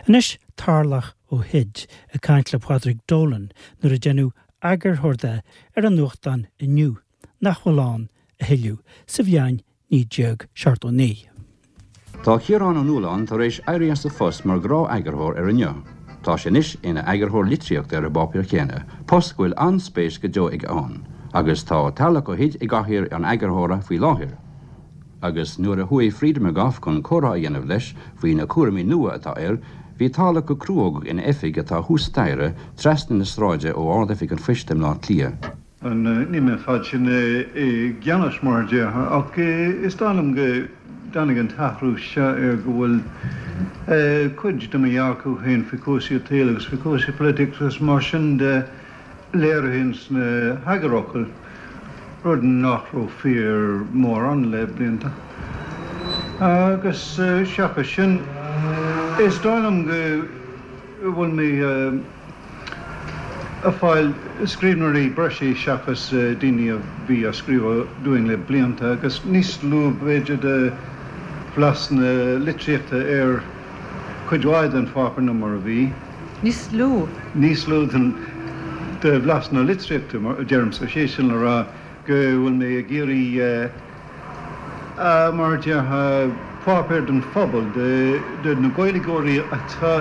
Anois Tarlach Ó hUid ag caint le Padraig Dolan nuair a deineadh eagarthóir de ar an nuachtán Inniu, nach bhfuil ann a thuilleadh, sa bhliain 1979. Tá Ciarán Ó Nualláin tar éis éirí as a phost mar ghnáth-eagarthóir ar Inniu. Tá sé anois ina eagarthóir litríochta ar an bpáipéar céanna, post go bhfuil an-spéis go deo aige ann, agus tá Tarlach Ó hUid i gcathaoir an eagarthóra faoi láthair. Agus nuair a chuaigh Freda McGough chun comhrá a dhéanamh leis faoi na cúraimí nua atá air, bhí Tarlach go cruógach ina oifig atá thuas staighre, trasna na sráide ó Ard-Oifig an Phoist i mBleá Cliath. Níl mé an fad sin i gceannas mar a déarfá ach is dóigh liom go dtáinig an t-athrú seo ar go bhfuil cuid de mo dhearcadh féin faoi chúrsaí an tsaoil agus faoi chúrsaí polaitíochta agus mar sin de léirithe ins na heagarfhocail, rud nach raibh fíor mórán le blianta. Agus seachas sin, is dóigh liom go bhfuil mé. ag fáil scríbhneoirí breise seachas daoine a bhí ag scríobh dúinn le blianta agus níos lú b'fhéidir de bhlas na litríochta ar chuid mhaith den pháipéar ná mar a bhí. Níos lú? Níos lú den de bhlas na litríochta, a deirimse, sé sin le rá go bhfuil mé ag iarraidh mar a déarfá, páipéar don phobal, do na Gaeilgeoirí atá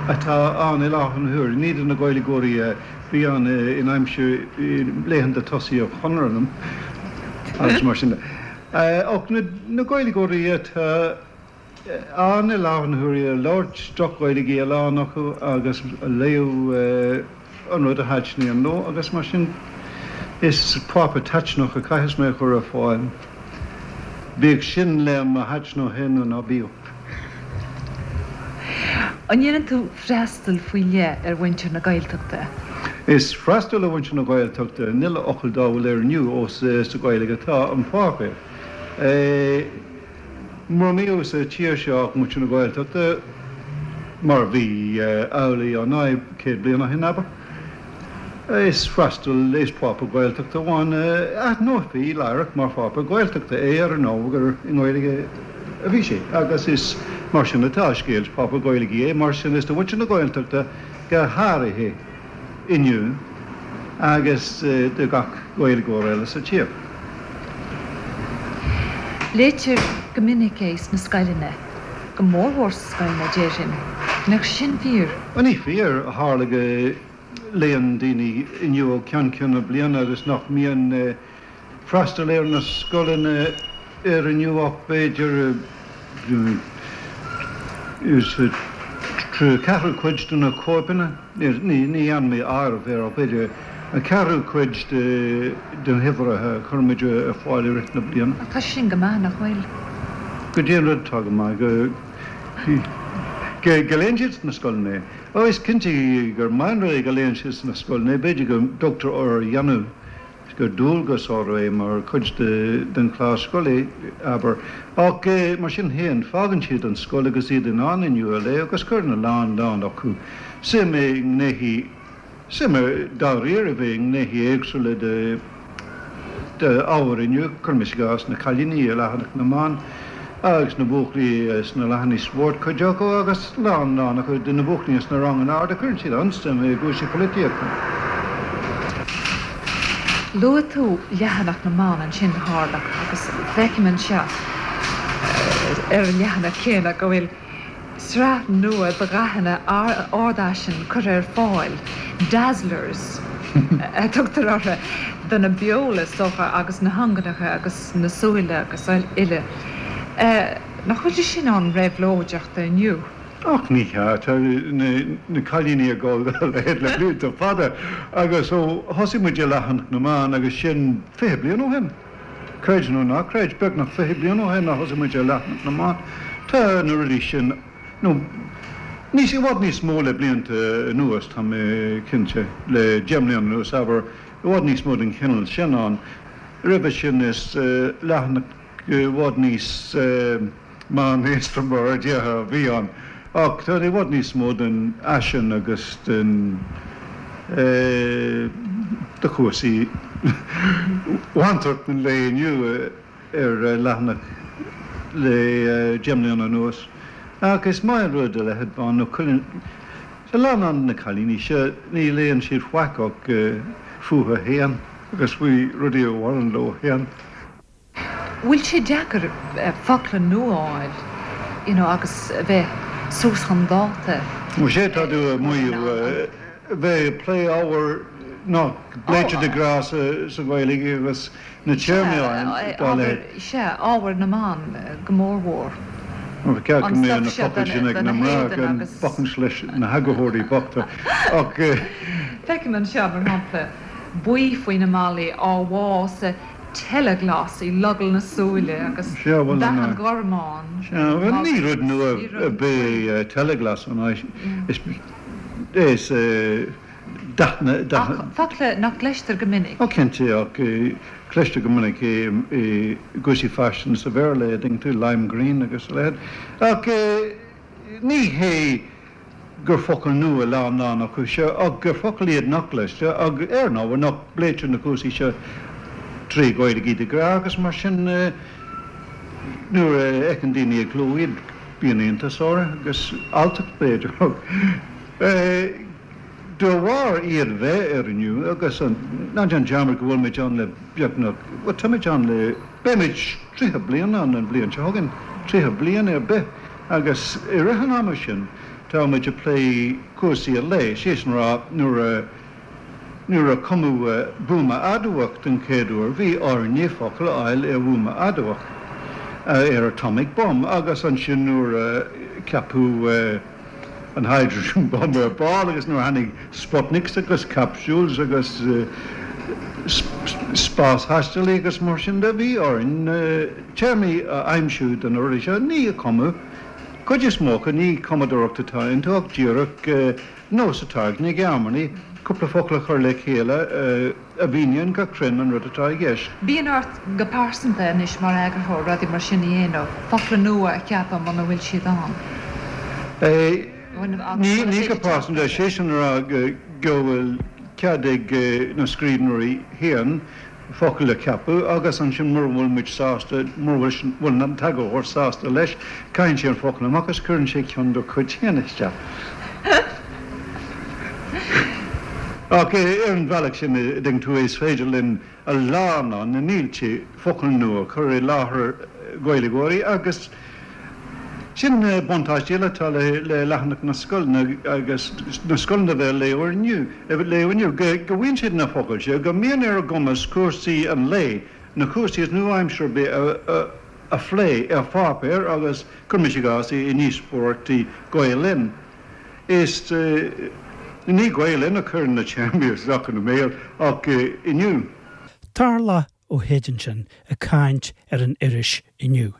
atá ann i láthair na huaire, ní do na Gaeilgeoirí a bhí ann in aimsir laethanta tosaigh an Chonartha agus mar sin de, ach na Gaeilgeoirí atá ann i láthair na huaire, ag labhairt droch-Ghaeilge a lán acu agus a léamh an rud a thaitníonn leo agus mar sin is páipéar taitneamhach a chaithfeas mé a chur ar fáil, bíodh sin le mo thaitneamh féin nó ná bíodh. An ndéanann tú freastal faoi leith ar mhuintir na Gaeltachta? Is freastal ar mhuintir na Gaeltachta an uile fhocal dá bhfuil ar Inniu ós sa Ghaeilge atá an páipéar. Mura mbíodh sa tír seo ach muintir na Gaeltachta, mar a bhí amhlaidh ar ndóigh 100 bliain ó shin, abair, is freastal, is páipéar Gaeltachta amháin a aithneofaí láithreach mar pháipéar Gaeltachta é ar ndóigh gur i nGaeilge a bhí sé agus is mar sin atá an scéal, is páipéar Gaeilge é, mar sin is do mhuintir na Gaeltachta go háirithe. inniu agus do gach Gaeilgeoir eile sa tír. Léitear go minic é sna scoileanna, go mórmhór sna scoileanna, déarfainn. An mbeadh sin fíor? Bhuel, ní fíor. Tharla go léann daoine inniu ó cheann ceann na bliana agus nach mbíonn freastal ar na scoileanna ar Inniu ach b'fhéidir ceathrú cuid de na cóipeanna, ní dhearna mé áireamh air ach b'fhéidir an ceathrú cuid de na huimhreacha a chuirimid ar fáil i rith na bliana. Ach tá sin go maith, nach bhfuil? Goidé an rud atá go maith, go go léann siad sna scoileanna é. Ó, is cinnte gur maith an rud é go léann siad sna scoileanna é, b'fhéidir go dtugtar orthu a dhéanamh. gur dualgas orthu é mar chuid den chlár scoile, abair. Ach mar sin féin, fágann siad an scoil agus iad in ann Inniu a léamh agus cuireann a lán lán acu suim i ngnéithe, suim dáiríribh i ngnéithe éagsúla de d'ábhar Inniu, cuirimis i gcás na cailíní i leathanach na mban agus na buachaillí sna leathanaigh spóirt, cuid acu, agus lán lán acu de na buachaillí sna ranganna arda, cuireann siad an-suim i gcúrsaí polaitíochta. Luaigh tú leathanach na mban ansin, a Tharlach, agus feicim anseo ar an leathanach céanna go bhfuil sraith nua de dhathanna ardfhaisin curtha ar fáil, dazzlers a tugtar orthu, do na beola, is dócha, agus na hinginneacha agus na súile agus uile. Nach bhfuil sé sin an-réabhlóideach d'Inniu? Ach ní hea, tá na cailíní ag dul dá leithéid le blianta fada agus ó thosaigh muid ar leathanach na mban agus sin 20 bliain ó shin, creid nó ná creid, beagnach 20 bliain ó shin a thosaigh muid ar leathanach na mban, tá na rudaí sin, nó níos, i bhfad níos mó le blianta anuas, tá mé cinnte, le 10 mbliana anuas, abair, i bhfad níos mó den chineál sin ann. Roimhe sin is leathanach i bhfad níos. meánaosta mar a déarfá a bhí ann, ach tá i bhfad níos mó den fhaisean agus den de chúrsaí mhantracht an lae inniu ar leathanach le 10 mbliana anuas. Ach is maith an rud a leithéid ban nó cuireann a lán de na cailíní seo, ní léann siad faic ach fúthu féin agus faoi rudaí a bhaineann leo féin. Bhfuil sé deacair focla nua a fháil you know agus a bheith suas chun dáta? Bhuel sé tá tú ag maíomh bheith ag plé ábhar nach bpléitear de ghnáth sa Ghaeilge agus na téarmaí dá leithéid. Sea, ábhar na mban go mórmhór. Ba cheart go mbeadh na focail sin ag na mná gan bacaint leis na heagarthóirí bochta ach. Feicim anseo, mar shampla, buí faoi na malaí á bhá sa teilea-ghlas i logall na súile agus dath an ghormáin. Sea, bhuel ní rud nua ar bith é teilea-ghlas, an ea? Is dath na. Ach focla nach gcloistear go minic. Ó cinnte, ach cloistear go minic é i gcúrsaí faisin sa Bhéarla, an dtuigeann tú, lime green agus a leithéid. Ach ní hé gur focail nua a lán acu seo, ach gur focail iad nach gcloistear, ach ar ndóigh nach bpléitear na cúrsaí seo trí Ghaeilge de ghnáth agus mar sin nuair a fheiceann daoine i gcló iad bíonn iontas orthu agus alltacht b'fhéidir. De bharr iad bheith ar Inniu agus ná déan dearmad go bhfuil muid ann le beagnach, bhuel tá muid ann le, beidh muid 30 bliain ann an bhliain seo chugainn, 30 bliain ar bith agus i rith an ama sin tá muid ag plé cúrsaí an lae, sé sin a rá nuair a, nuair a cumadh buama adamhach den chéad uair bhí orainne focal a fháil ar bhuama adamhach, ar atomic bomb agus ansin nuair a ceapadh. an hydrogen bomb ar ball agus nuair a tháinig Sputniks agus capsules agus spásthaistealaí agus mar sin de, bhí orainn téarmaí a aimsiú do na rudaí seo. Ní cumadh, cuid is mó acu, ní cumadóireacht atá iontu ach díreach nós atá ag na Gearmánaigh cúpla focal a chur le chéile a mhíníonn go cruinn an rud atá i gceist. Bíonn ort go pearsanta anois mar eagarthóir rudaí mar sin a dhéanamh, focla nua a cheapadh muna bhfuil siad ann? Ní go pearsanta, sé sin a rá go bhfuil cead ag na scríbhneoirí féin focail a cheapadh agus ansin mura bhfuil muid sásta, mura bhfuil an t-eagarthóir sásta leis, caitheann sé an focal amach agus cuireann sé ceann dá chuid féin isteach. Ach ar an bhealach sin, a dtuigeann tú, is féidir linn a lán, na mílte focal nua a chur i láthair Gaeilgeoirí agus sin buntáiste eile atá le leathanach na scoileanna agus na scoileanna a bheith ag léamh Inniu, go bhfaigheann siad na focail seo, go mbíonn ar a gcumas cúrsaí an lae, na cúrsaí is nua-aimseartha ar bith a phlé ar pháipéar agus, cuirimis i gcás, i ndíospóireachtaí Gael Linn. Is ní Gael Linn a chuireann na téarmaí isteach ina mbéal ach Inniu. Tarlach Ó hÉid ansin ag caint ar an iris Inniu.